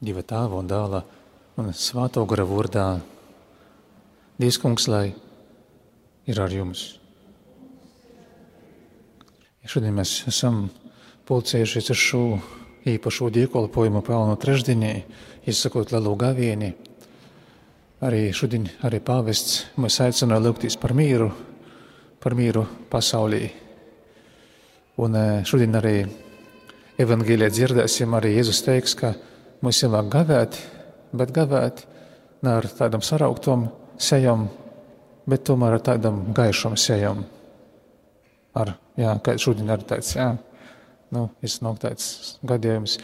Dieva Tēva un Dēla un Svētā gara vārdā. Dievs, Kungs, lai ir ar jums. Šodien mēs esam pulcējušies ar šo īpašo dievkalpojumu Pelnu trešdienī, izsakot lielu gavieni. Arī šodien arī pāvests mūs aicināja lūgties par mīru pasaulī. Un šodien arī evangēlijā dzirdēsim, arī Jēzus teiks, ka mums ir vajag gavēt, bet gavēt ne ar tādam sarauktom sejam, bet tomēr ar tādam gaišam sejam. Kā šodien arī tāds, iznāk tāds gadījums.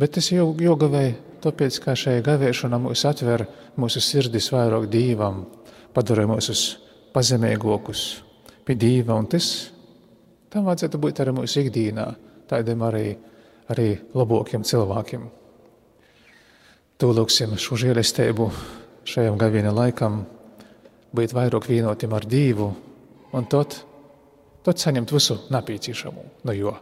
Bet es jau gavēju, tāpēc, ka šajā gavēšana mūs atver mūsu sirdis vairāk Dievam, padara mūsus pazemīgākus pie Dieva, un tam vajadzētu būt arī mūsu ikdienā, tādiem arī labākiem cilvēkiem. To lūksim šo žēlastību šajam gaviena laikam, būt vairāk vienotiem ar Dievu, un tad saņemt visu nepieciešamo no jo.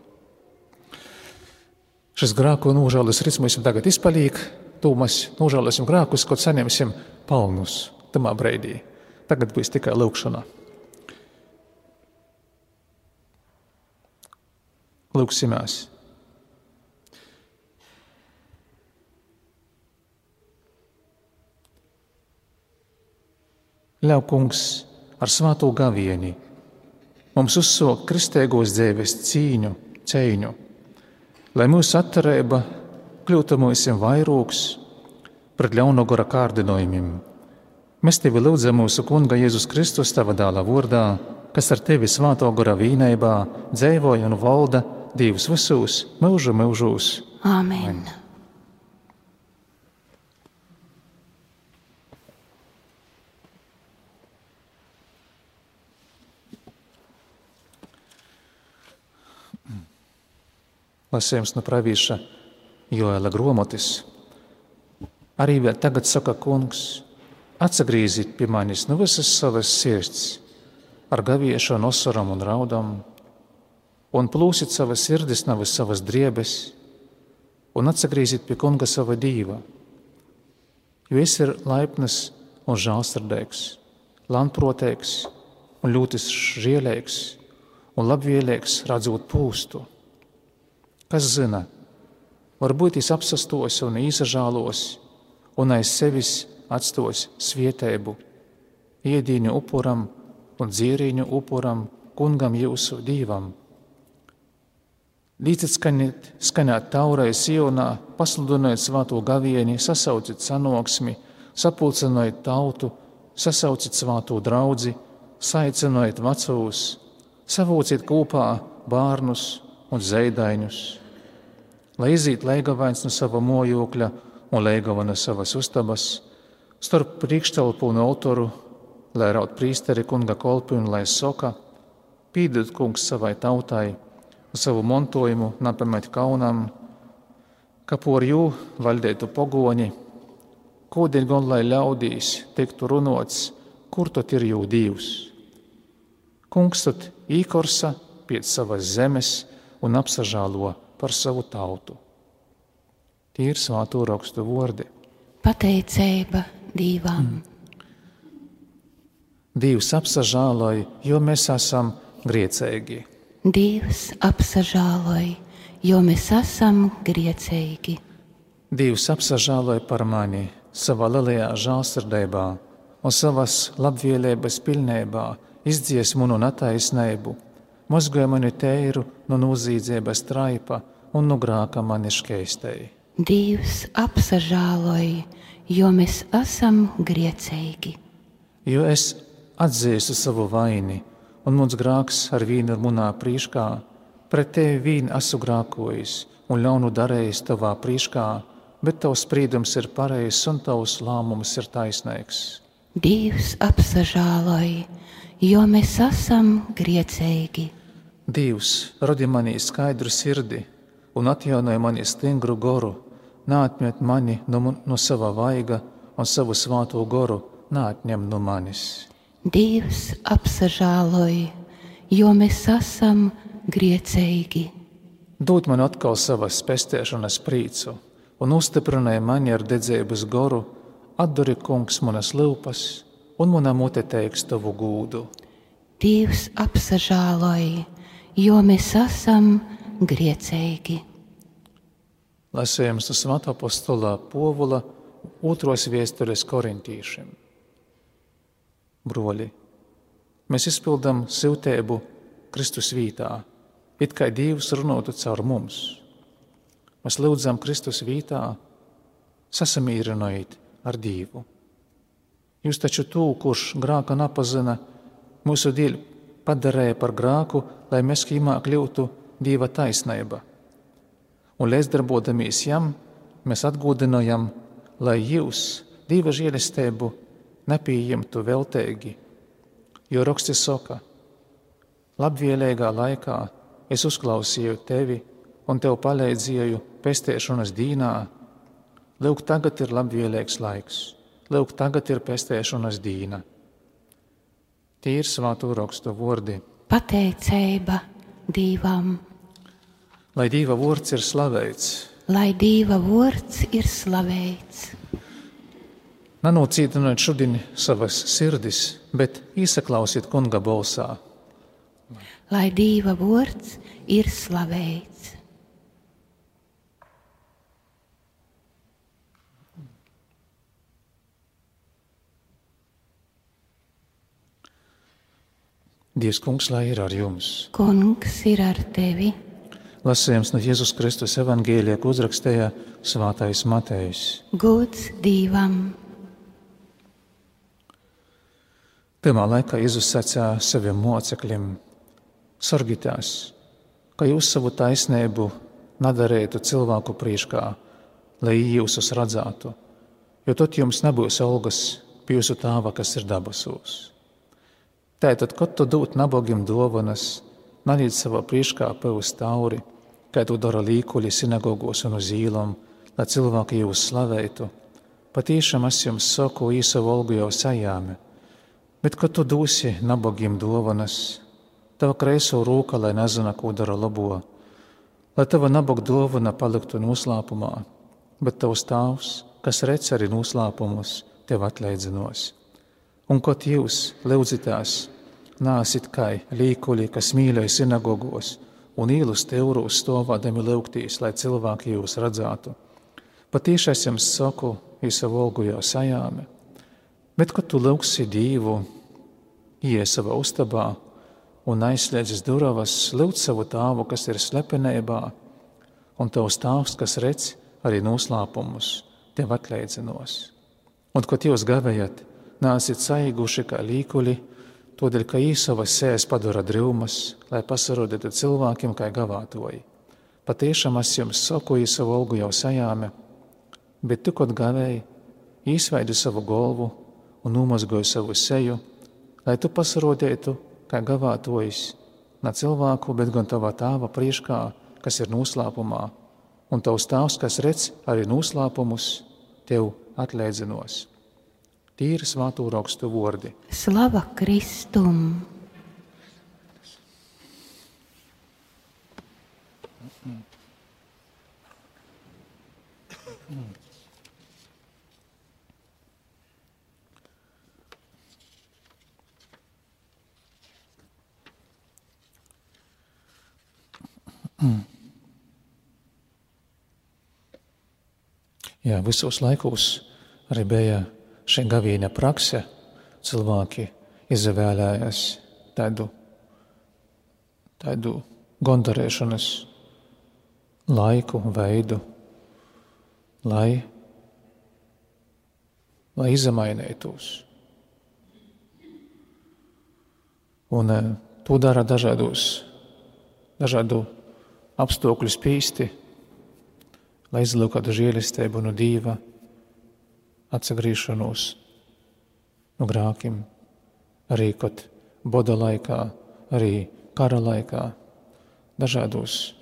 Šis grāku nožēlas rits mums tagad izpaliek, to mēs nožēlasim grākus, kad saņemsim palnus tamā breidī. Tagad būs tikai lūkšana. Lūksimies. Ļauj, Kungs, ar svēto gavieni mums uzsākt kristīgos dzīves cīņu, lai mūsu atturība kļūtu mūsim vairāks pret ļauno gara kārdinājumiem. Mēs tevi lūdzam mūsu Kunga Jēzus Kristus tava dēla vārdā, kas ar tevi svēto gara vienībā dzīvoja un valda Dievs visos mūžos. Āmen. Lasījums no pravīša Joela gromotis. Arī vēl tagad saka Kungs, atsagrīzīt pie manis no visas savas sirds, ar gaviešanu, osaram un raudam, un plūsit savas sirdis no visas savas driebes, un atsagrīzīt pie Kunga sava Dieva, jo es ir laipnas un žālsirdīgs, lantproteigs un ļoti žielīgs un labvēlīgs redzot pūstu. Kas zina, varbūt es apsastos un īsažālos un aiz sevis atstos svietēbu, iedīņu upuram un dzierīņu upuram Kungam jūsu Dievam. Līdzit skanēt taurai Sionā, pasludinot svēto gavieni, sasaucit sanoksmi, sapulcinot tautu, sasaucit svēto draudzi, saicinot vecūs, savūcit kopā bārnus un zeidaņus, lai iziet leigavains no sava mojokļa un leigava no savas ustabas, starp priekštelpu un autoru, lai raud prīsteri Kunga kolpi un lai soka, pīdot Kungs savai tautai un savu montojumu napamet kaunam, ka por jū valdētu pogoņi, kūdien gan lai ļaudīs tiktu runots, kur tot ir jū Dievs. Kungs tot īkorsa pēc savas zemes un apsažālo par savu tautu. Tie ir svēto rakstu vārdi. Pateicība Dievam. Dievs apsažāloja, jo mēs esam griecīgi. Dievs apsažāloja, jo mēs esam griecīgi. Dievs apsažāloja par mani savā lielajā žālsirdībā un savas labvēlības pilnībā izdzies manu netaisnību, mazgoja mani teiru no nozīdzības traipa un no grāka mani škeistei. Dievs apsažāloja, jo mēs esam griecīgi. Jo es atzīstu savu vaini, un mans grāks ar vīnu ir munā prīškā, pret tevi vīnu esmu grākojis un ļaunu darējis tavā prīškā, bet tavs sprīdums ir pareizs un tavs lēmums ir taisnīgs. Dievs apsažāloja, jo mēs esam griecīgi. Dievs rodi manī skaidru sirdi un atjaunoja mani stingru goru, neatmet mani no sava vaiga un savu svāto goru neatņem no manis. Dievs apsažāloja, jo mēs esam griecīgi. Dod man atkal savas pestēšanas prīcu un uzstiprināja mani ar dedzības goru, atduri, kungs, manas lūpas, un mana mute teiks tavu gūdu. Dievs apsažāloja, jo mēs esam griecīgi. Lasējums no Svētā apostolā Povula 2. vēstules korintīšiem. Broļi, mēs izpildām siltēbu Kristus vītā, it kā Dievs runātu caur mums. Mēs lūdzam Kristus vītā, sasamīrinojiet ar Dievu. Jūs taču tū, kurš grāka napazina, mūsu dēļ padarēja par grāku, lai mēs kīmā kļūtu Dieva taisnība. Un līdzdarbodamies jam, mēs atgūdinojam, lai jūs Dieva žēlestību nepieņemtu veltīgi. Jo raksti saka, labvēlīgā laikā es uzklausīju tevi un tev palīdzēju pestēšanas dīnā. Lūk, tagad ir labvēlīgs laiks. Lūk, tagad ir pestēšanas dīna. Tie ir Svēto rakstu vārdi. Pateicība Dievam. Lai Dieva vārds ir slavēts. Lai Dieva vārds ir slavēts. Nenocītiniet šodien savas sirdis, bet īsaklausiet kunga balsā. Lai Dieva vārds ir slavēts. Dievs kungs, lai ir ar jums. Kungs ir ar tevi. Lasījums no Jēzus Kristus evangēlijā, ko uzrakstīja Svētais Matejs. Gods Dievam. Pirmā laikā Jēzus sacīja saviem mocekļiem: sargitās, ka jūs savu taisnību nedarētu cilvēku priekšā, lai jūsus redzētu, jo tad jums nebūs algas pie jūsu Tēva, kas ir debesos. Tātad, kad tu dod nabagiem dāvanas, neliec savā priekšā pavus tauri, kā to dara līkuļi sinagogos un uz īlām, lai cilvēki jūs slavētu. Patiešām es jums saku, savu algu jau sajāmi, bet kad tu dosi nabagiem dāvanas, tava kreiso rūka, lai nezina, ko dara labo, lai tava nabaga dāvana paliktu noslēpumā, bet tavs Tēvs, kas redz arī noslēpumus, tev atleidzinos. Un kad jūs lūdzitās, nāsit kā līkuļi, kas mīlēja sinagogos un īlus teurūs stāvādami lūgtīs, lai cilvēki jūs redzētu. Patiešām es jums saku, savu algu jau sajāmi, bet kad tu lūgsi Dievu, iej savā ustabā un aizslēdzis durvis, lūdz savu Tēvu, kas ir slepenībā, un tavs Tēvs, kas redz arī noslēpumus, tev atleidzinos. Un kad jūs gavējat, nāsit saiguši kā līkuļi, todēļ, ka savas sēs padara drūmas, lai pasarodētu cilvēkiem kā gavātoji. Patiešām es jums saku, savu algu jau sajāmi, bet tu, kad gavēji, izveidi savu galvu un nomazgoji savu seju, lai tu pasarodētu kā gavātojis, ne cilvēku, bet gan tava Tēva priekšā, kas ir noslēpumā, un tavs Tēvs, kas redz arī noslēpumus, tev atleidzinos. Tie ir Svēto rakstu vārdi. Slava Kristum! Jā, visos laikos arī bija šī gaviena prakse. Cilvēki izvēlējās tādu gondarēšanas laiku, veidu, lai izmainītos. Un to dara dažādu apstākļu spīsti, lai izlūkātu žēlastību no Dieva, atsagriešanos no grākiem, arī kad boda laikā, arī kara laikā, dažādos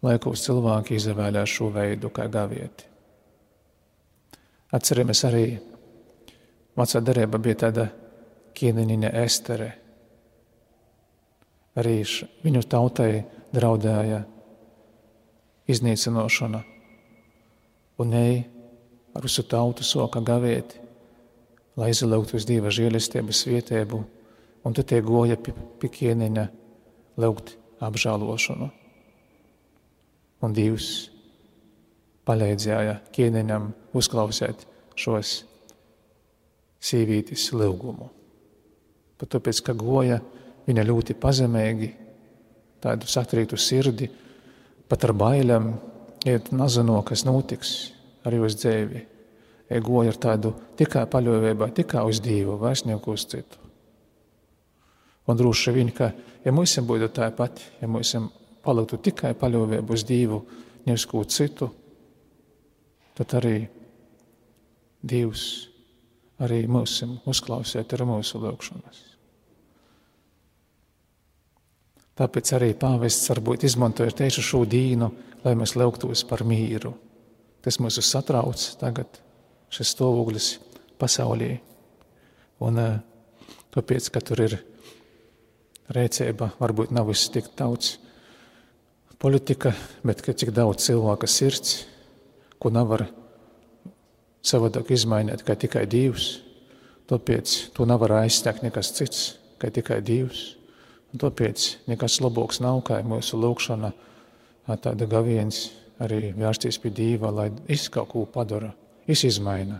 laikos cilvēki izvēlējās šo veidu kā gavieti. Atceramies arī, vecā derība bija tāda ķēniņa Estere. Arī viņu tautai draudēja iznīcinošana, un ej ar visu tautu soka gavēt, lai izlauktu uz Dieva žēlistības vietēbu, un tu tie goja pie ķēniņa lūgt apžālošanu. Un Dievs palīdzēja ķēniņam uzklausēt šos sīvītis lūgumu. Pat tāpēc, ka goja viņa ļoti pazemīgi, tādu satrītu sirdi, pat ar bailēm, iet nezino, kas notiks ar jūs dzēvi. Goja ar tādu tikai paļāvībā, tikai uz Dievu, vairs neko uz citu. Un droši vien, ka, ja mums būtu tāpat, ja mums paliktu tikai paļāvību uz Dievu, nevis ko citu, tad arī Dievs arī mūs uzklausīt ar mūsu lūgšanas. Tāpēc arī pāvests varbūt izmantoja tieši šo dīnu, lai mēs lūgtos par mīru. Tas mūs satrauc tagad, šis stāvoklis pasaulī. Un tāpēc, ka tur ir rēcība, varbūt nav viss tik daudz politika, bet ka cik daudz cilvēka sirds, ko nevar savādāk izmainīt, kā tikai Dievs. Tāpēc to nevar aizstākt nekas cits, kā tikai Dievs. Un tāpēc nekas labāks nav, kā mūsu lūgšana tāda gaviens arī vērsties pie Dieva, lai kaut ko padara, izmaina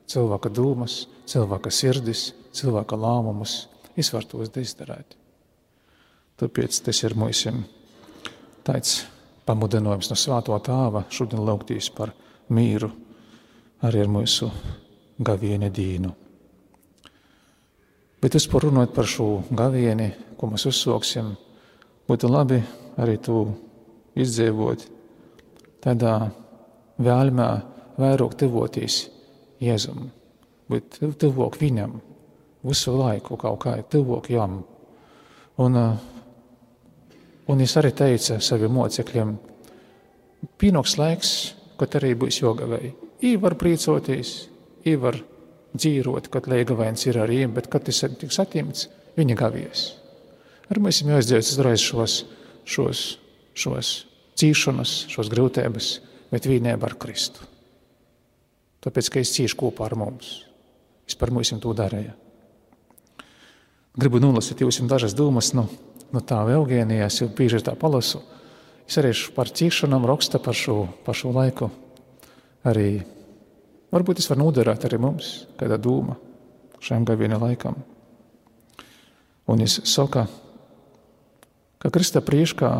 cilvēka dūmas, cilvēka sirdis, cilvēka lēmumus, var tos izdarīt. Tāpēc tas ir mūsu tāds pamudinājums no Svētā Tēva šodien lūgtīs par mīru arī ar mūsu gavieni dīnu. Bet runājot par šo gavieni, ko mēs uzsāksim, būtu labi arī to izdzīvot tādā vēlmē vairāk tuvoties Jēzum, bet tuvāk viņam, visu laiku kaut kā tuvāk jam. Un es arī teicu saviem mocekļiem, pienāks laiks, kad arī būs jogavei. Var prīcoties, var dzīvot, kad leigavēns ir arī, bet kad tas tiks atņemts, viņa gavies. Ar mēs jāizdzīvot uzreiz šos cīšanas, šos grūtības, bet vienībā ar Kristu. Tāpēc, ka es cīšu kopā ar mums. Es par mums to darīju. Gribu nolasīt jums dažas domas no tā Eugēnijā, es jau bieži tā palasu. Es arī par cīšanām raksta par šo laiku. Arī varbūt es varu noderēt arī mums, kāda doma šajam gaviena laikam. Un es saku, ka Krista priekšā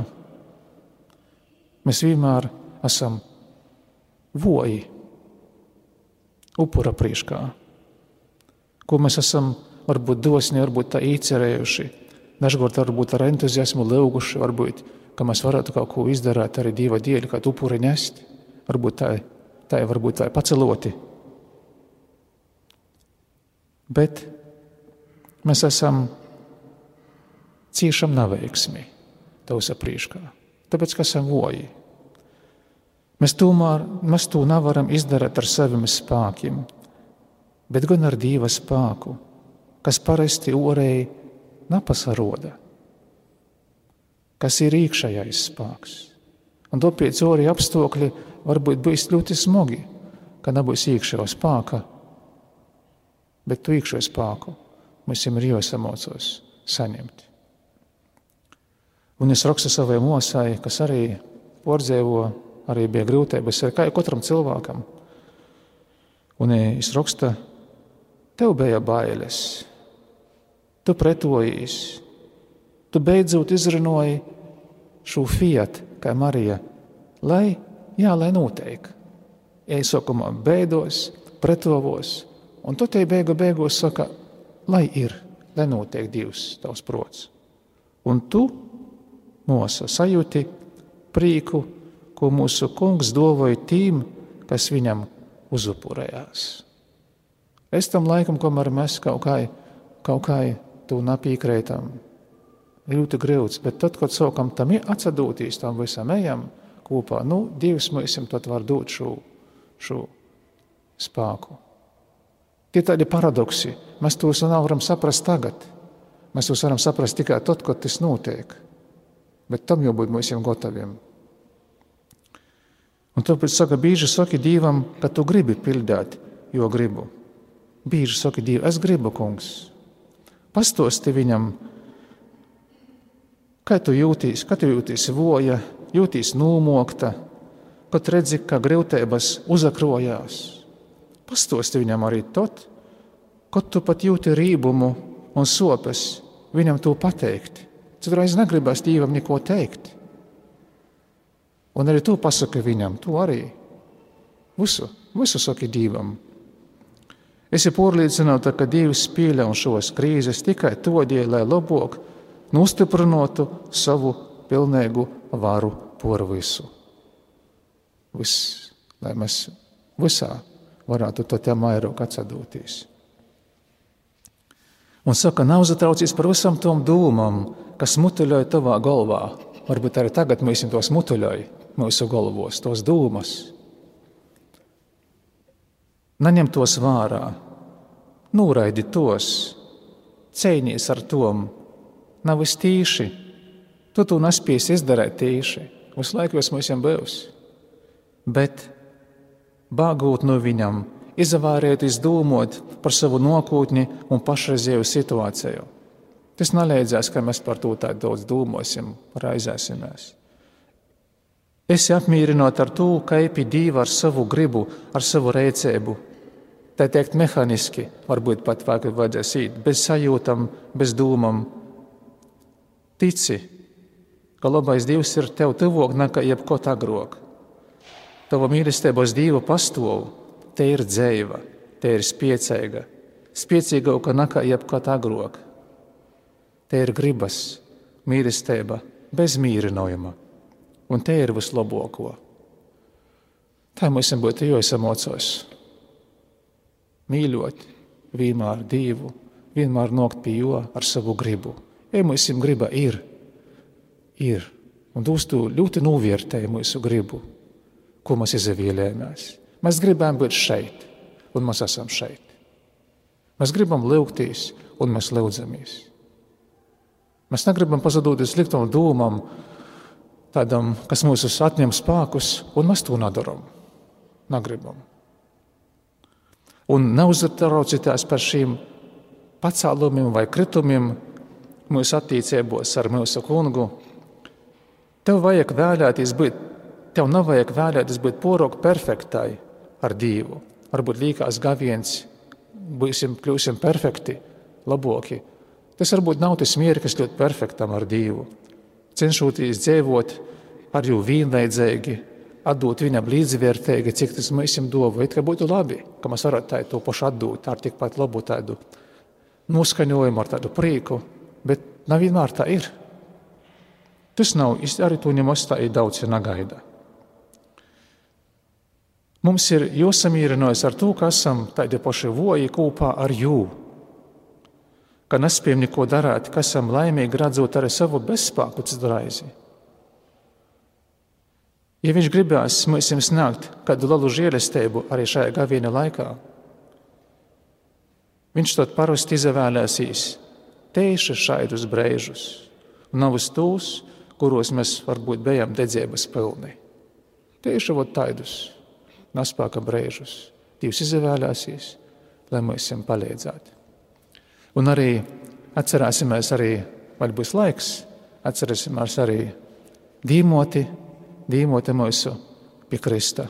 mēs vienmēr esam voji upura priekšā, ko mēs esam varbūt dosni, varbūt tā īcerējuši, dažkārt varbūt ar entuziasmu lūguši, varbūt, ka mēs varētu kaut ko izdarīt arī Dieva dēļ, kā upuri nest, varbūt tā varbūt tā paceloti. Bet mēs esam ciešam neveiksmi tavsa priekšā, tāpēc, ka esam voji. Mēs to nevaram izdarīt ar saviem spēkiem, bet gan ar Dieva spēku, kas parasti orēji nepasaroda, kas ir iekšējais spēks. Un tāpēc orēji apstākļi varbūt būs ļoti smagi, ka nebūs iekšējā spēka, bet tu iekšējo spēku mums ir jāsamocos saņemt. Un es rakstu savai mosai, kas arī pārdzīvo, arī bija grūtības, kā katram cilvēkam. Un es rakstu, tev bija bailes, tu pretojies, tu beidzot izrunāji šo fiat, kā Marija, lai noteik. Es sākumā beidos, pretovos, un tu te beigos saka, lai notiek Dievs tavs prots. Un tu, mosa, sajūti prīku, ko mūsu kungs dovoja tīm, kas viņam uzupurējās. Es tam laikam, kamēr mēs kaut kā tu napīkrētam, ļoti grūts, bet tad, kad sākam tam atsadūtīs, tam visam ejam kopā, Dievs mums tad var dot šo spēku. Tie tādi paradoksi, mēs tos nevaram saprast tagad. Mēs tos varam saprast tikai tad, kad tas notiek. Bet tam jau būt mums gataviem. Un tāpēc saka, bīži saki Dievam, ka tu gribi pildīt, jo gribu. Bīži saki Dievam, es gribu, kungs. Pastosti viņam, kā tu jūtīsi voja, jūtīsi nūmokta, kad redzi, ka grūtības uzakrojās. Pastosti viņam arī tot, kad tu pat jūti rībumu un sopes, viņam to pateikt. Citreiz negribas Dievam neko teikt. Un arī tu pasaki viņam, tu arī. Visu saki Dievam. Esi pārliecināta, ka Dievs pieļauj šos krīzes tikai todēļ, lai labāk nostiprinātu savu pilnīgu varu pār visu. Lai mēs visā varētu to te vairāk atsadoties. Un saka, nav zatraucies par visam tom dūmam, kas mutuļoja tavā galvā. Varbūt arī tagad mēs tos mutuļoja mūsu galvos, tos dūmas. Naņem tos vārā, nūraidi tos, cīnies ar tom, nav es tīši, tu nespēsi izdarēt tīši, visu laiku es mums būs. Bet bāgūt no viņam, izavārēties dūmot par savu nākotni un pašreizējo situāciju. Tas neleidzās, ka mēs par to tā daudz dūmosim, raizēsimies. Esi apmīrinot ar to, ka epi Dievu ar savu gribu, ar savu rēcēbu. Tā teikt mehaniski, varbūt pat vajadzēs īt, bez sajūtam, bez dūmam. Tici, ka labais Dievs ir tev tuvāk nekā jebkot agrāk. Tava mīlestības Dievu pastāv, te ir dzeiva, te ir spiecīga, spiecīgāka nekā jebkot agrāk. Te ir gribas, mīlestība, bez mīrinājuma, un te ir vislabāko. Tā mums būtu jāsamocās. Mīļot vienmēr Dievu, vienmēr nokt pie jo ar savu gribu. Ja mums griba ir, un uz to ļoti novērtēja mūsu gribu, ko mēs izvēlējāmies. Mēs gribam būt šeit, un mēs esam šeit. Mēs gribam lūgties, un mēs lūdzamies. Mēs negribam pazadoties sliktam dūmam, tādam, kas mūs atņem spēkus, un mēs to nedaram. Negribam. Un neuztraucieties par šīm pacēlumiem vai kritumiem mūsu attiecībos ar mūsu kungu. Tev nevajag vēlēties būt pārāk perfektai ar Dievu. Varbūt līkās gaviens, kļūsim perfekti, labāki. Tas varbūt nav tas mierklis ļoti perfektam ar Dievu. Cenšoties dzīvot ar jū vienlaidzīgi, atdot viņam līdzvērtīgi, cik tas mēs dovu. It kā būtu labi, ka mēs varētu to pašu atdot ar tikpat labu tādu noskaņojumu, ar tādu prieku, bet nevienmēr tā ir. Tas nav, arī to nemaz tā ir daudz, ja negaida. Mums ir jāsamīrinās ar to, ka esam tādi paši voji kopā ar jū, ka nespējam neko darāt, ka esam laimīgi redzot arī savu bezspēku citreizi. Ja viņš gribēs mums sniegt kādu lielu žēlastību arī šajā gaviena laikā, viņš to parasti izvēlēsīs tieši šādus brīžus, un nav uz tos, kuros mēs varbūt bijām dedzības pilni. Tieši tādus nespēka brīžus Dievs izvēlēsīs, lai mums palīdzētu. Un arī atcerēsimies arī, vai būs laiks, atcerēsimies arī dīmoti mūsu pie Krista,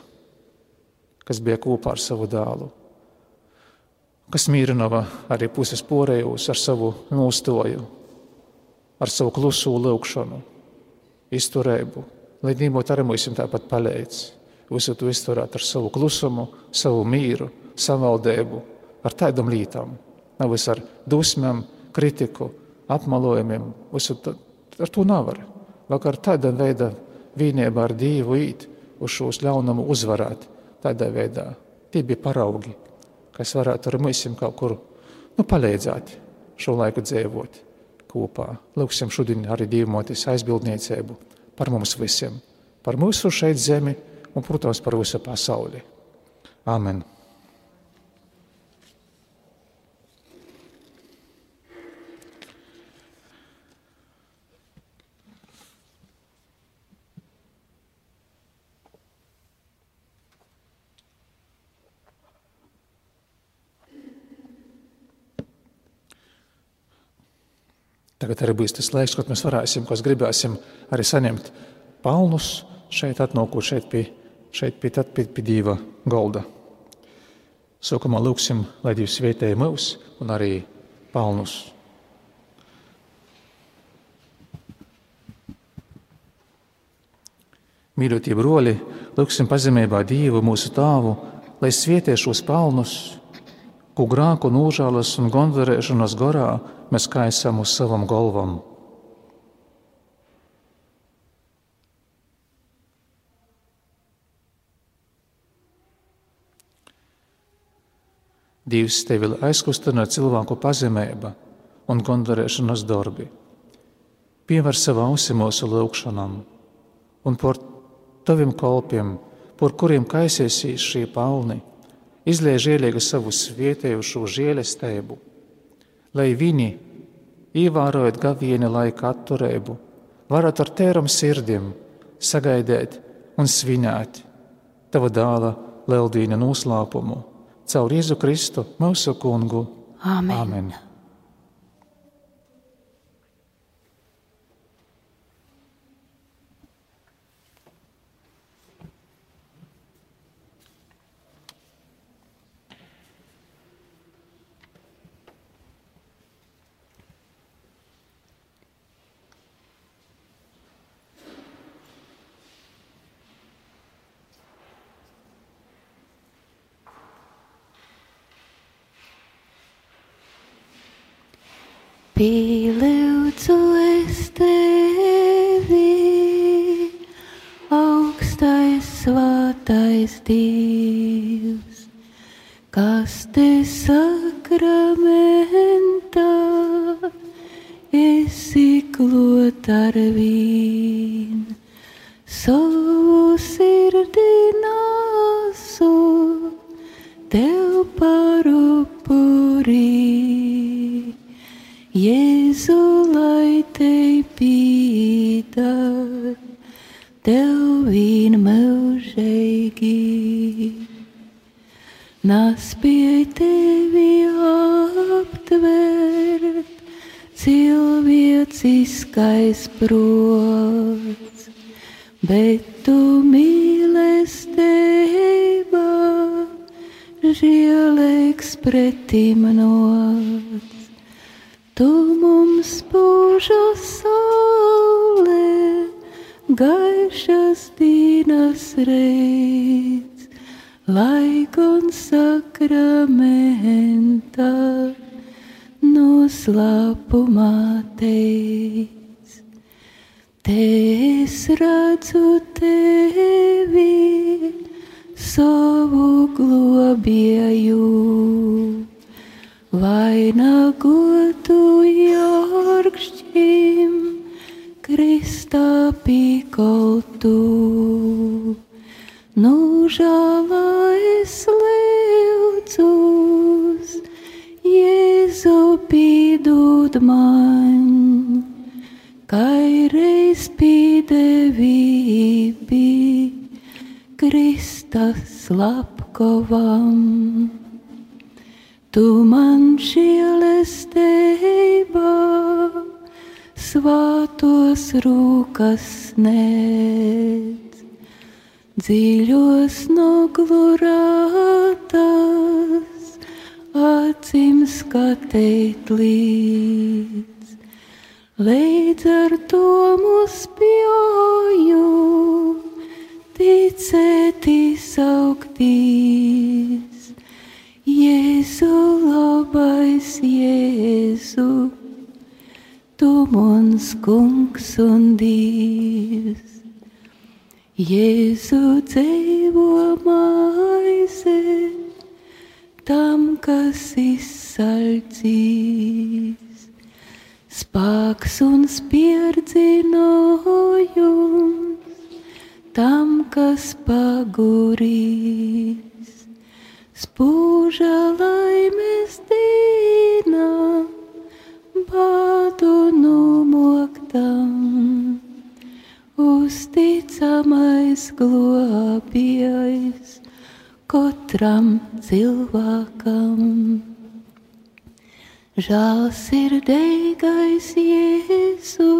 kas bija kopā ar savu dēlu, kas mīrinova arī puses porējus ar savu nostoju, ar savu klusu lūgšanu, izturēbu, lai dīmot arī mums tāpat palīdz. Visu to izturēt ar savu klusumu, savu mīru, savaldēbu, ar tādām lietām. Nevis ar dusmēm, kritiku, apmalojumiem. Ar to nevar. Vai ar tādā veidā vienībā ar Dievu īt uz šos ļaunumu uzvarēt. Tādā veidā tie bija paraugi, kas varētu ar mums kaut kur palīdzēt šo laiku dzīvot kopā. Lūksim šodien arī Dievmotes aizbildniecību par mums visiem, par mūsu šeit zemi un, protams, par visu pasauli. Āmen. Tagad arī būs tas laiks, kad mēs varēsim, kas gribēsim, arī saņemt palnus šeit atnākot šeit pie Dieva golda. Sākumā lūksim, lai Dievs svētēja mūs un arī palnus. Mīļotie broļi, lūksim pazemībā Dievu mūsu Tāvu, lai svētē šos palnus, ko grāku nūžālas un gondarēšanas gorā mēs kaisam uz savam golvam. Dievs tevi aizkustina cilvēku pazemība un gondarēšanas darbi. Pievar savu ausi mūsu lūgšanam un par taviem kalpiem, par kuriem kaisiesīs šie palni, izliej žēlīgi savu svietējušo žēlestību, lai viņi, ievērojot gavieni laika atturību, varētu ar tēram sirdiem sagaidīt un svinēt tava dāla leldīna noslēpumu caur Jēzu Kristu, mūsu kungu. Āmen. Āmen. Pielūdzu es tevi, augstais svētais Dievs, kas te sakramentā esi klāt ar vīn, savu sirdī nesu tev par upurī. Jēzu, lai te pīdar, tev vien mūžīgi. Naspēj tevi aptvert, cilvēciskais prots, bet tu mīlestība, žēlīgs pretim nots. Tu mums būža saule, gaišas dienas reids, lai gan sakramentā noslēpumā teic. Te es redzu tevi, savu globēju, vainagotu jorgšķim, Kristā pīkoltu. Nūžālā es lūdzos, Jēzu pīdod man, kai reiz pīdevībi Krista slepkavam. Tu man žēlestība, svātos rūkas sniedz, dziļos noglurātas, acīm skatīt līdz. Līdz ar to mūs spēju ticēt izauktīs. Jēzu, labais Jēzu, tu mans kungs un Dievs. Jēzu, dzīvo maize tam, kas izsalcīs, spēks un spierdzinājums tam, kas pagurīs. Spūža laimes dīna, bādu numoktam, uzticamais globējs katram cilvēkam. Žēlsirdīgais Jēzu,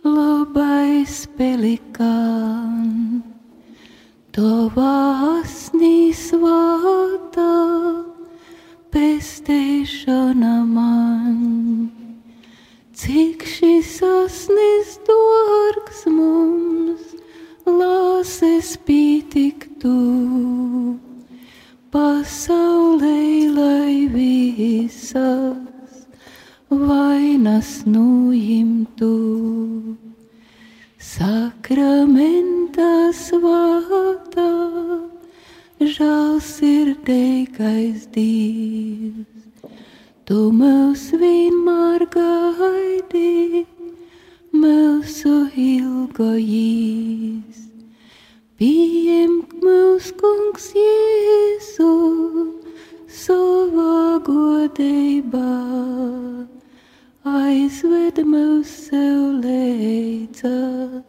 labais pelikān, tavā asnī svātā pestēšana man. Cik šis asnis dārgs mums, lāses pītiktu, pasaulē lai visas vainas nujimtu. Sakramenta svātā, žēlsirdīgais Dievs, tu mūs vienmēr gaidi, mūsu ilgojīs. Pieņem mūs, Kungs Jēzu, savā godībā, aizved mūs sev leidza,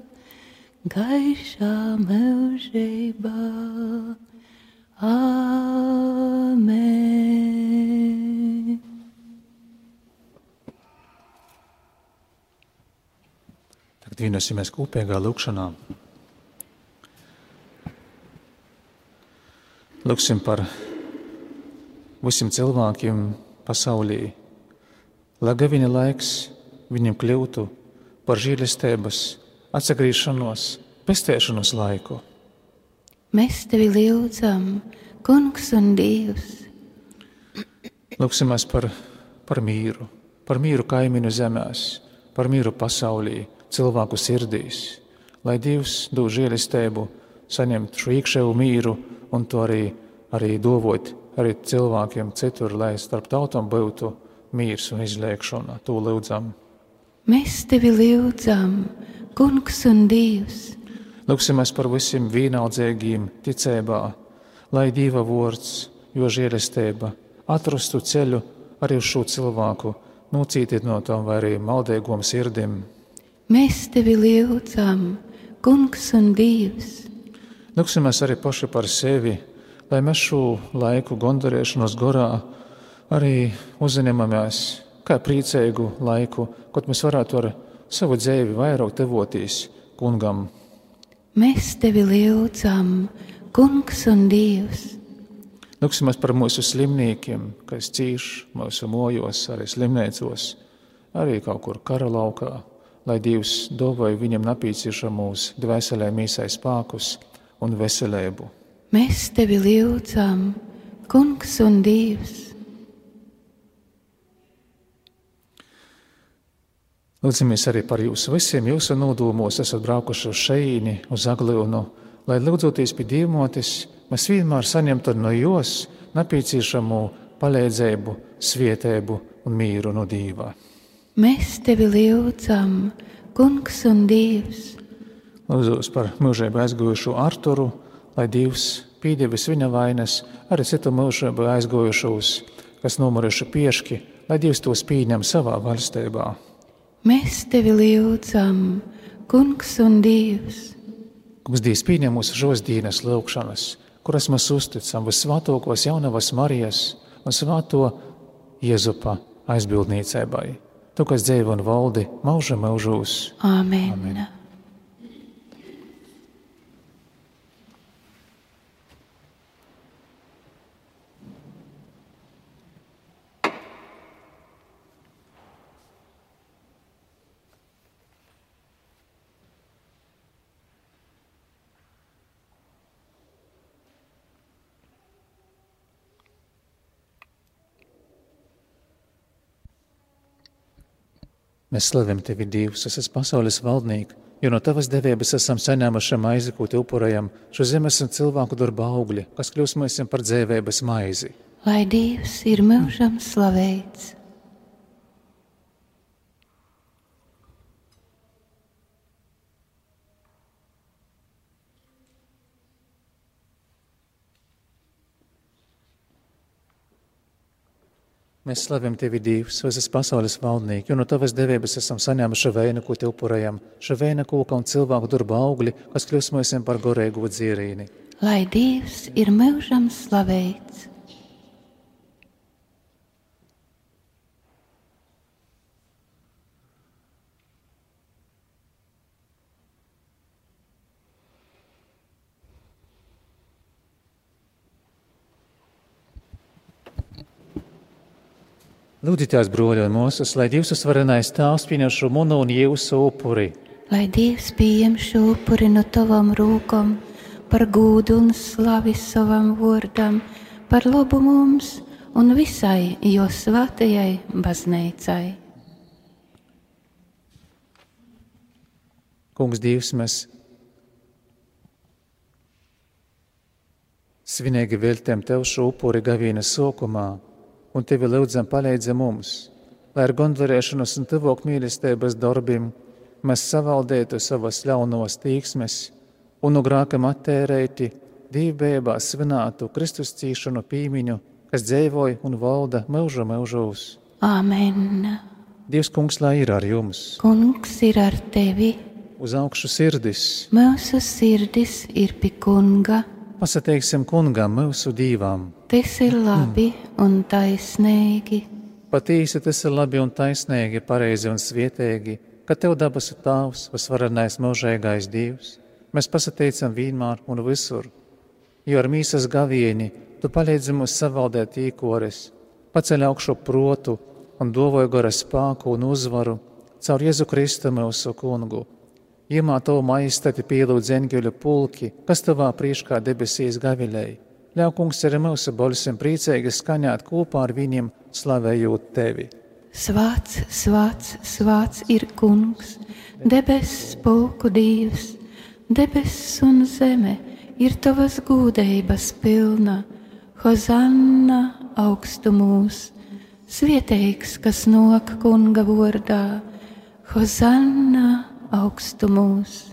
gaišā mūžībā. Āmen. Tagad vienosimies kopīgā lūkšanā. Lūksim par visiem cilvēkiem pasaulī, lai viņa laiks viņam kļūtu par žēlastības, atsagrīšanos, pestēšanos laiku. Mēs tevi lūdzam, Kungs un Dievs. Lūksimies par mīru kaimiņu zemēs, par mīru pasaulī, cilvēku sirdīs, lai Dievs dod žēlastību, saņemt šo iekšējo mīru un to arī dovot arī cilvēkiem citur, lai starp tautām būtu mīrs un izlēkšana. To lūdzam. Mēs tevi lūdzam, Kungs un Dievs. Lūksimies par visiem vienaldzīgiem ticībā, lai Dieva vārds, jo žēlastība atrastu ceļu arī uz šo cilvēku, nocītīt no tām vai arī maldīgām sirdim. Mēs tevi lūdzam, Kungs un Dievs. Lūksimies arī paši par sevi, lai mēs šo laiku gondarēšanos gorā arī uzņemamies kā priecīgu laiku, kad mēs varētu ar savu dzīvi vairāk devotīs Kungam. Mēs tevi lūdzam, Kungs un Dievs. Lūksimies par mūsu slimniekiem, kas cīš mūsu mojos, arī slimnīcos, arī kaut kur kara laukā, lai Dievs dāvāj viņam nepieciešamos dvēselē mīsai spēkus un veselību. Mēs tevi lūdzam, Kungs un Dievs. Lūdzamies arī par jūsu visiem, jūsu nodomos esat braukuši uz šeīni, uz Aglionu, lai lūdzoties pie Dievmotes, mēs vienmēr saņemtu no jūs nepieciešamo palīdzību, svētību un mīru no Dieva. Mēs tevi lūdzam, Kungs un Dievs. Lūdzos par mūžību aizgojušo Arturu, lai Dievs pīdēvis viņa vainas, arī citu mūžību aizgojušos, kas nomuruši pieški, lai Dievs tos pieņem savā valstībā. Mēs tevi lūdzam, Kungs un Dievs. Kungs Dievs pieņem mūsu šos dienas lūkšanas, kuras mēs uzticam visvētākos jaunavas Marijas un svēto Jēzupa aizbildniecībai. Tu, kas dzīvo un valdi mūža mūžos. Āmen. Amen. Mēs slavim Tevi, Dievs, es esmu pasaules valdnieks, jo no Tavas devības esam saņēmuši maizi, ko Te upurējam, šo zemes un cilvēku darba augļi, kas kļūs mēs par dzīvības maizi. Lai Dievs ir mūžam slavēts. Mēs slavim Tevi, Dievs, es esmu pasaules valdnieks, jo no Tavas devības esam saņēmuši veinu, ko Te upurējam, šo veina koka un cilvēku darba augļi, kas kļūs mēs par gorēgu dzierīni. Lai Dievs ir mūžam slavēts. Lūdzitās, broļi un mūsus, lai Dievs uzvarenais Tēvs pieņem šo manu un jūsu upuri. Lai Dievs pieņem šo upuri no tavam rūkam, par gūdu un slavi savam vārdam, par labu mums un visai jo svētajai baznīcai. Kungs Dievs, mēs svinīgi veltiem Tev šo upuri gavienes sākumā, un Tevi lūdzam palīdzi mums, lai ar gondvarēšanos un tuvāk mīlestības darbiem mēs savaldētu savas ļaunos tīksmes un no grākam attērēti dīvbībā svinētu Kristus cīšanu pīmiņu, kas dzīvoja un valda mūžu mūžos. Āmen. Dievs, Kungs, lai ir ar jums. Kungs ir ar tevi. Uz augšu sirdis. Mūsu sirdis ir pie Kunga. Pasateiksim Kungam mūsu dīvām. Tas ir labi un taisnīgi. Patīsi tas ir labi un taisnīgi, pareizi un svietīgi, ka Tev dabasu Tēvs, visvarenais mūžīgais Dievs. Mēs pasateicam vienmēr un visur, jo ar mīsas gavieni Tu palīdzi mums savaldēt īkoris, paceļ augšu protu un dovoju gara spēku un uzvaru caur Jēzu Kristu mūsu Kungu. Iemā Tavu maistati pielūdz eņģeļu pulki, kas Tavā priekšā debesīs gavilēja. Ļauj, Kungs, arī mūsu balsim priecīgi skaņāt kopā ar viņiem, slavējot Tevi. Svāts, svāts, svāts ir Kungs, debesis spēku Dievs, debesis un zeme ir Tavas gūdības pilna. Hozanna augstumos, svētīgs, kas nāk Kunga vārdā, Hozanna augstumos.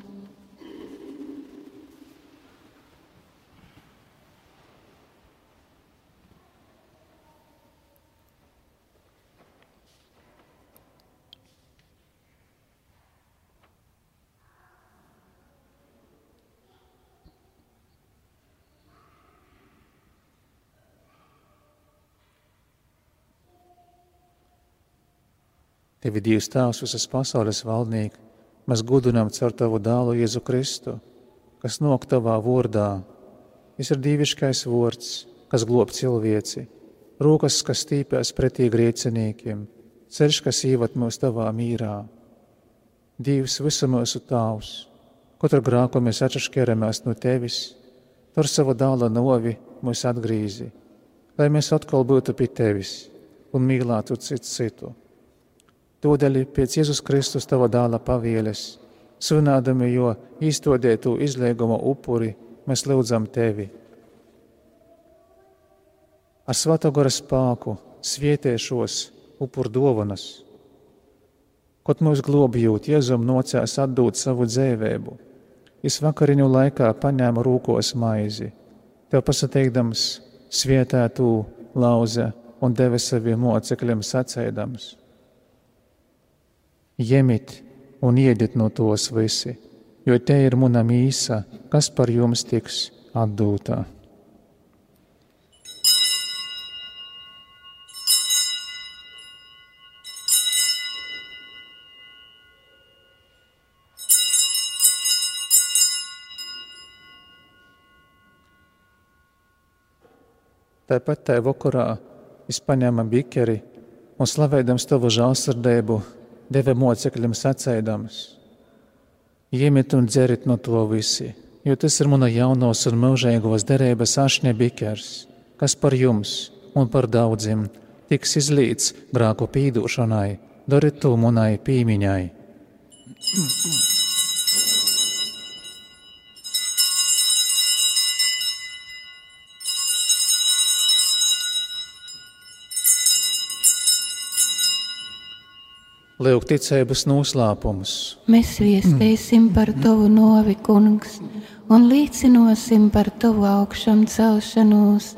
Tevi Dievs Tēvs, visas pasaules valdnieki, mēs gudinām caur Tavu dēlu Jēzu Kristu, kas nāk Tavā vārdā. Viņš ir dieviškais vārds, kas glob cilvēci, rokas, kas stīpēs pretī grēciniekiem, ceļš, kas ievad mūs Tavā mīrā. Dievs, visu mūsu Tēvs, katru grāku mēs atšķiramies no Tevis, tur savu dēla novi mūs atgrīzi, lai mēs atkal būtu pie Tevis un mīlētu citu. Tūdaļ pēc Jēzus Kristus Tava dēla pavieles, svinādami jo īstodētu izlieguma upuri, mēs lūdzam Tevi. Ar svētā gara spēku svietiešos upur dovanas, kaut mūs globjūt, Jēzum nocēs atdūt savu dzīvību. Es vakariņu laikā paņēmu rūkos maizi, Tev pasateikdams svietētu lauze un deva saviem mocekļiem sacēdams. Jemit un iediet no tos visi, jo te ir mana mīsa, kas par jums tiks atdūtā. Tāpat tajā vakarā es paņēmu bikeri un slavēdams Tavu žēlsirdību, deva mocekļiem sacēdams. Iemiet un dzerit no to visi, jo tas ir mana jaunos un mūžīgos derības ašņa bikers, kas par jums un par daudziem tiks izlīts grāku pīdūšanai, dariet to manai pīmiņai. Lūk ticības noslēpumus. Mēs viestīsim par Tavu novi, Kungs, un līdzinosim par Tavu augšām celšanos,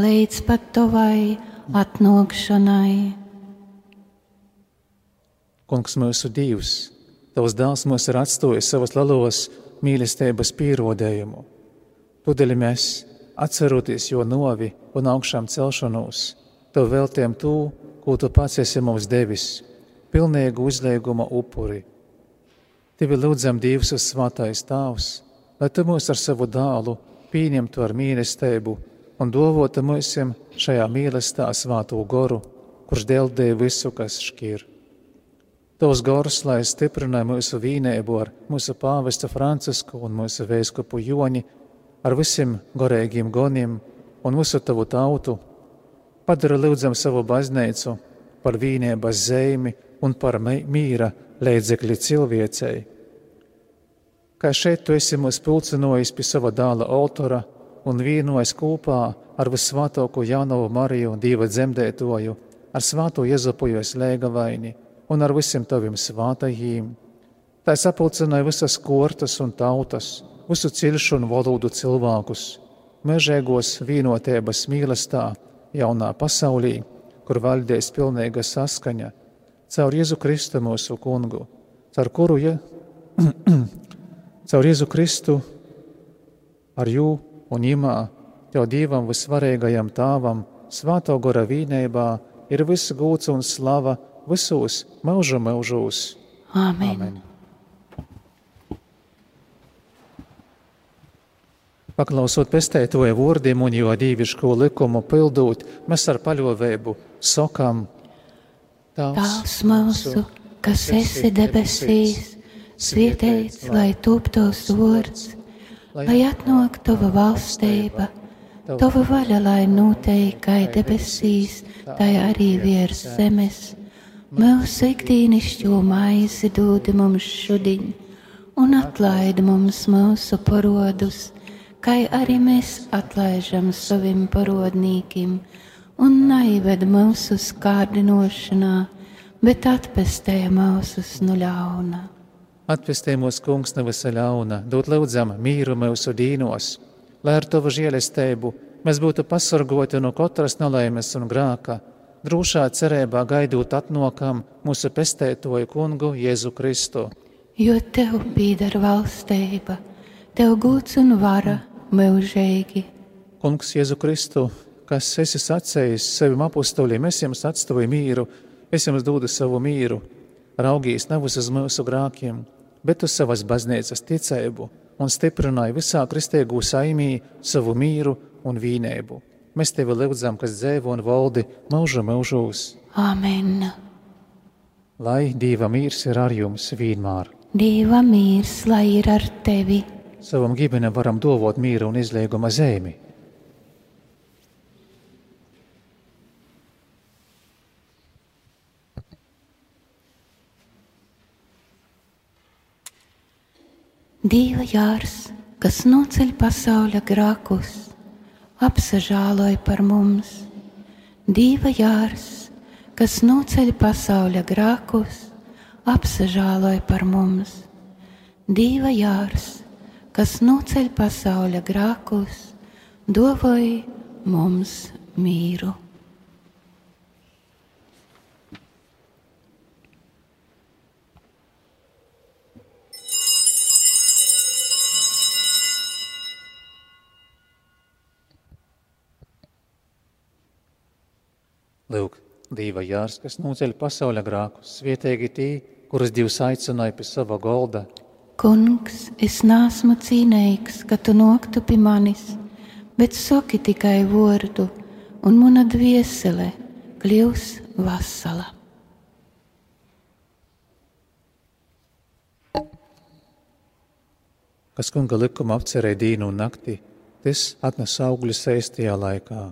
līdz pat Tavai atnākšanai. Kungs, mūsu Dievs, Tavs dēls mūs ir atstājis savas lielos mīlestības pierādījumu. Tūdaļ mēs, atceroties jo novi un augšām celšanos, Tev veltījam to, ko Tu pats esi mums devis, pilnīgu uzlieguma upuri. Tevi lūdzam, Dievs, svētais Tēvs, lai Tu mūs ar savu dēlu pieņemtu ar mīlestību un dovotu mūsim šajā mīlestībā svēto goru, kurš deldēja visu, kas šķir. Tavs gars, lai stiprināja mūsu vīnēbu ar mūsu pāvesta Francisku un mūsu vēskupu Joni, ar visiem gorēgiem goniem un visu tavu tautu, padara lūdzam savu baznīcu par vīnēbas zemi un par mīra līdzekļi cilvēcei. Kā šeit tu esi mūs pulcinojis pie sava dāla altora un vienojis kopā ar visvātāko jaunavu Mariju, Dieva dzemdētoju, ar svāto Jezupuju slēgavaini un ar visiem taviem svātajiem. Tā sapulcināja visas kortas un tautas, visu cilšu un valodu cilvēkus, mežēgos vienotības mīlestā, jaunā pasaulī, kur valdēs pilnīga saskaņa, caur Jēzu Kristu mūsu kungu, caur Jēzu Kristu ar jū un imā, tev Dievam visvarīgajam tāvam, svāto gora vīnībā, ir viss gūts un slava visos mūžu mūžos. Āmen. Amen. Paklausot pestētoja vārdiem un jo dīviško likumu pildūt, mēs ar paļāvību sakām: Tēvs mūsu, kas esi debesīs, svētīts lai top tavs vārds, lai atnāk tava valstība, tava vaļa lai notiek kā debesīs, tā arī virs zemes. Mūsu ikdienišķo maizi dod mums šodien, un atlaid mums mūsu parodus, kā arī mēs atlaižam saviem parodnīkiem, un neived mūsu kārdinošanā, bet atpestē mūsus no ļauna. Atpestē mūs, kungs, no visa ļauna, dod lūdzam mīru mūsu dīnos, lai ar tavu žēlestību mēs būtu pasargoti no katras nelaimes un grāka, drošā cerībā gaidot atnākam mūsu pestētoju kungu Jēzu Kristu. Jo tev pieder valstība, tev gods un vara mūžīgi. Kungs Jēzu Kristu, kas esi sacējis saviem apustuļiem, es jums atstāju mīru, es jums dodu savu mīru, raugīs nevis uz mūsu grākiem, bet uz savas baznīcas ticību un stiprināja visā kristīgū saimī savu mīru un vīnēbu. Mēs tevi lūdzam, kas dzīvo un valdi mūžu mūžos. Āmen. Lai Dieva mīrs ir ar jums vienmēr. Dieva mīrs, lai ir ar tevi. Savam ģimenem varam dovot mīru un izlieguma zemi. Dieva jārs, kas noceļ pasaules grēkus, apsažāloj par mums. Dieva jārs, kas noceļ pasaules grēkus, apsažāloj par mums. Dieva jārs, kas noceļ pasaules grēkus, dāvāj mums mīru. Lūk, Dieva jārs, kas noceļ pasaules grēkus, svētīgi tī, kurus Dievs aicināja pie sava golda. Kungs, es neesmu cienīgs, ka tu noktu pie manis, bet saki tikai vārdu, un mana dviesele kļūs vesela. Kas kunga likuma apcerēja dīnu un nakti, tas atnes augļus īstajā laikā.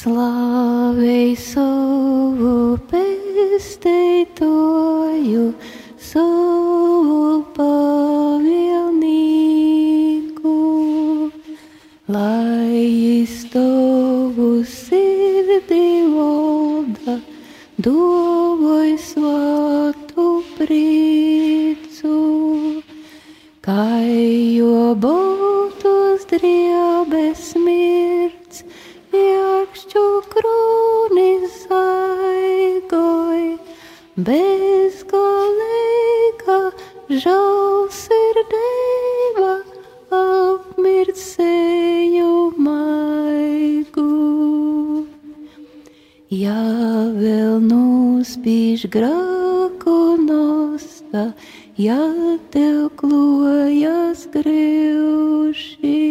Slavei savu pestītoju, savu pavilnīku, lai jis tavu sirdī valda, dovoj svātu prīcu, kai jo baltos driebes mirts, iekšķu krūnis aigoj, bezgalīga žēlsirdība apmirdzēju maigu. Ja vēl nospīž grēku nosta, ja tev klojas greuši,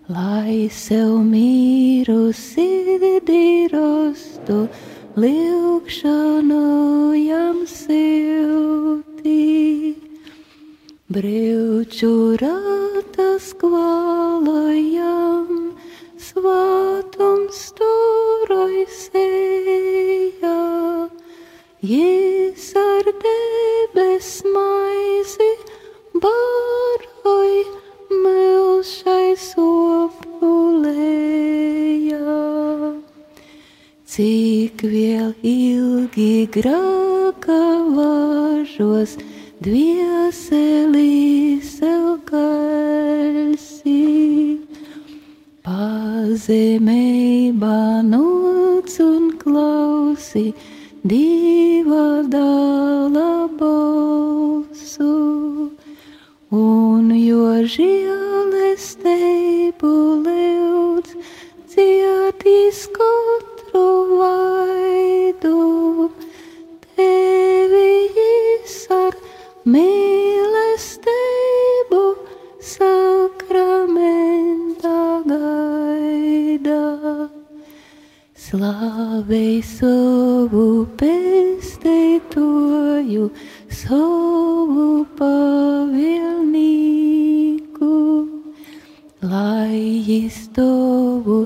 lai sev mīru sirdī rastu, lūgšanu jam silti. Brauču ratas kvalojam, svātums turoj sejā, Jis ar debes maizi baroj milšai sopulējā. Cik vēl ilgi grēka važos, dvieselī sev kalsi, pazemībā noc un klausi Dieva dāla balsu, un jo žēlestību lūdz, dziedīs katru vaidu, tevi jis ar mīlestību sakramentā gaida. Slavei savu pestītoju, savu pavilnīku, lai jis tavu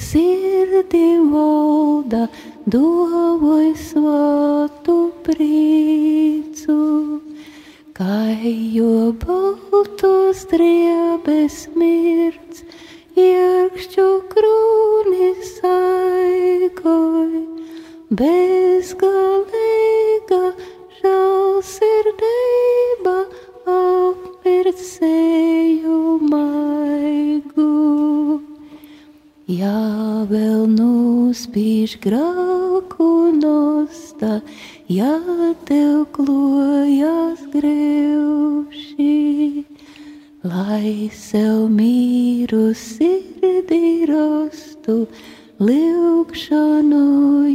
sirdī valda, dovoj svātu prīcu, kai jo baltos driebes mirts, iekšķu krūnis aigoj, bezgalīga žēlsirdība apmirdzēju maigu. Ja vēl nospīž grēku nosta, ja tev klojas greuši, lai sev mīru sirdī rastu, lūgšanu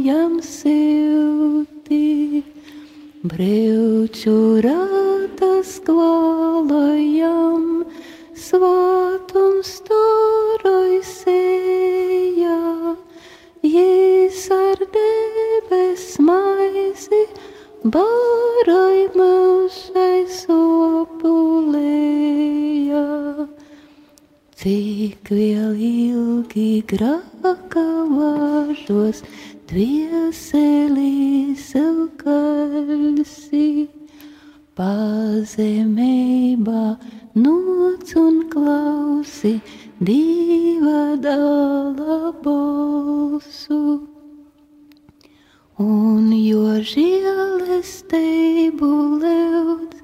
jam silti. Brauču ratas kvalojam, svātums turoj sejā, Jis ar debes maizi baroj milšai sopulējā. Cik vēl ilgi grēka važos, dvieselī sev kalsi, pazemībā noc un klausi Dieva dāla balsu, un jo žēlestību lūdz,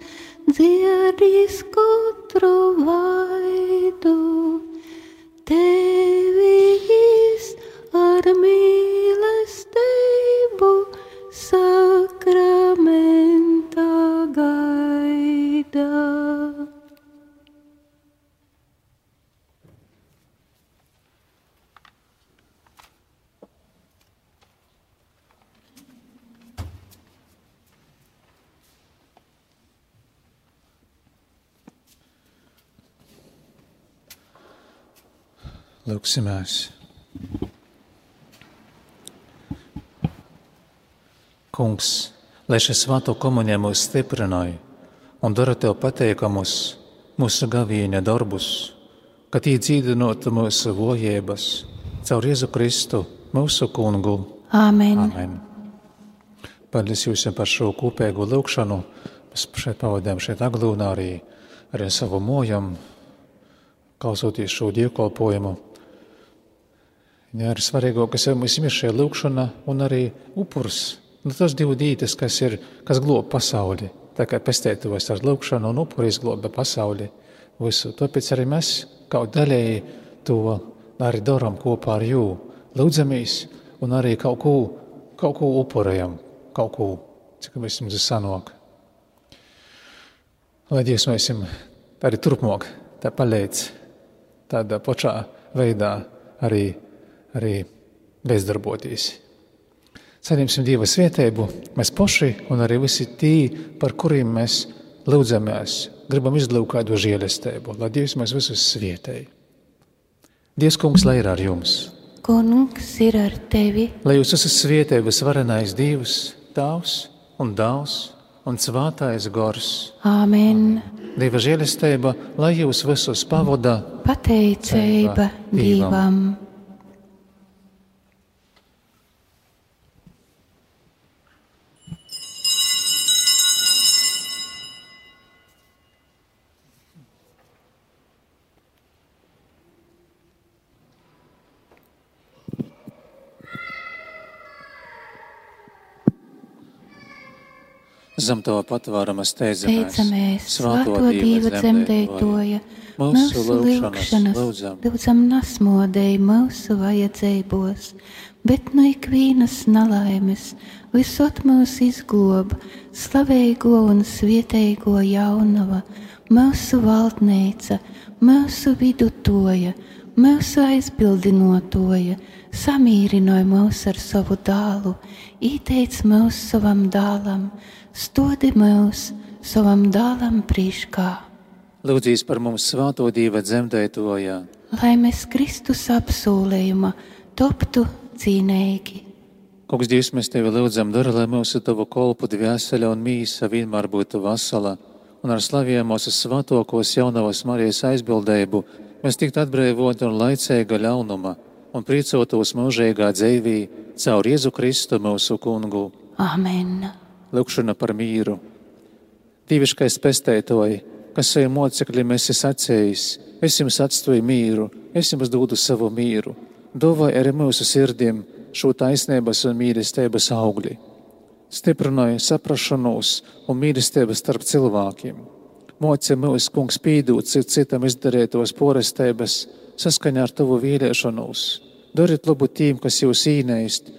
dziedīs katru vaidu, tevi jis ar mīlestību sakramentā gaida. Lūksimies. Kungs, lai šī svēto komunija mūs stiprināja un dara Tev pateikamus mūsu gavieņa darbus, ka tī dzīdinotu mūsu vojības caur Jēzu Kristu, mūsu kungu. Āmen. Amen. Paldies jums par šo kopēgo lūgšanu. Mēs šeit pavadījām Aglūnā arī savu mojam, klausoties šo dievkalpojumu. Jā, arī svarīgākais mums ir šī lūgšana un arī upurs. Tas divi dītas, kas glob pasauli. Tā kā pestētos ar lūgšanu un upuri izgloba pasauli visu. Tāpēc arī mēs kaut daļēji to arī darām kopā ar jū. Lūdzamies un arī kaut ko upurējam, kaut ko, cik mēs jums sanāk. Lai Dievs mēs arī turpmāk tā palīdz tādā pašā veidā arī bezdarboties. Saņemsim Dieva svētību, mēs paši un arī visi tī, par kuriem mēs lūdzamies, gribam izlūgt kādu žēlastību, lai Dievs mēs visus svētēji. Dievs kungs, lai ir ar jums. Kungs ir ar tevi. Lai jūs esat svētības varenais Dievs, Tēvs un Dēls un Svētais Gars. Āmen. Dieva žēlastība, lai jūs visus pavada Pateicība Dievam. Zem tava patvārama steidzamies, Svēto Dieva dzemdētoja, mūsu lūgšanas lūdzam nasmodēji mūsu vajadzībos, bet no ikvienas nelaimes visot mūs izglob, slavēgo un svietēgo jaunava, mūsu valdnīca, mūsu vidutoja, mūsu aizbildinotoja, samīrinoja mūs ar savu dālu, ieteic mūs savam dālam, stodi mūs savam dālam prīškā. Lūdzīs par mums Svēto Dieva dzemdētoja, lai mēs Kristus apsolījuma toptu cīnīgi. Kungs, Dievs, mēs Tevi lūdzam, dara, lai mūsu Tavu kolpu dvēsele un mīsa vienmēr būtu vesela, un ar slaviem mūsu svētokos jaunavas Marijas aizbildējumu mēs tiktu atbrīvoti un laicīga ļaunuma un priecotos mūžīgā dzīvī caur Jēzu Kristu mūsu kungu. Āmen. Lūkšana par mīru. Dieviškais pestētoji, kas saviem mocekļiem esi sacējis, es jums atstāju mīru, es jums dodu savu mīru. Dāvāj arī mūsu sirdīm šo taisnības un mīlestības augli. Stiprināja saprašanos un mīlestības starp cilvēkiem. Moci mūs, Kungs, pīdūt citam izdarētos porestības saskaņā ar Tavu vēlēšanos. Dariet labu tiem, kas jūs īnēst,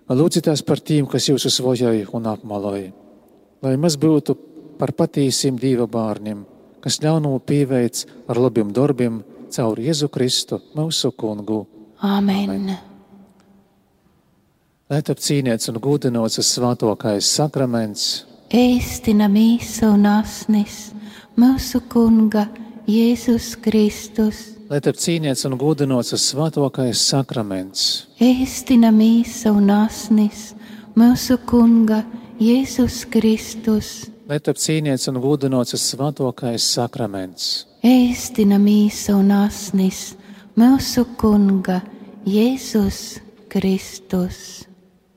lūdzitās par tiem, kas jūs uzvojoja un apmaloja. Lai mēs būtu par patīsiem Dieva bārniem, kas ļaunumu pieveic ar labiem darbiem caur Jēzu Kristu, mūsu kungu. Āmen. Lai top cīnīts un gūdinots svētokais sakraments, Ēstina mīsa un asnis, mūsu kunga Jēzus Kristus. lai top cīnīts un gūdinots svētokais sakraments, Ēstina mīsa un asnis, mūsu kunga Jēzus Kristus. lai top cīnīts un gūdinots svētokais sakraments, Ēstina mīsa un asnis, mūsu kunga Jēzus Kristus.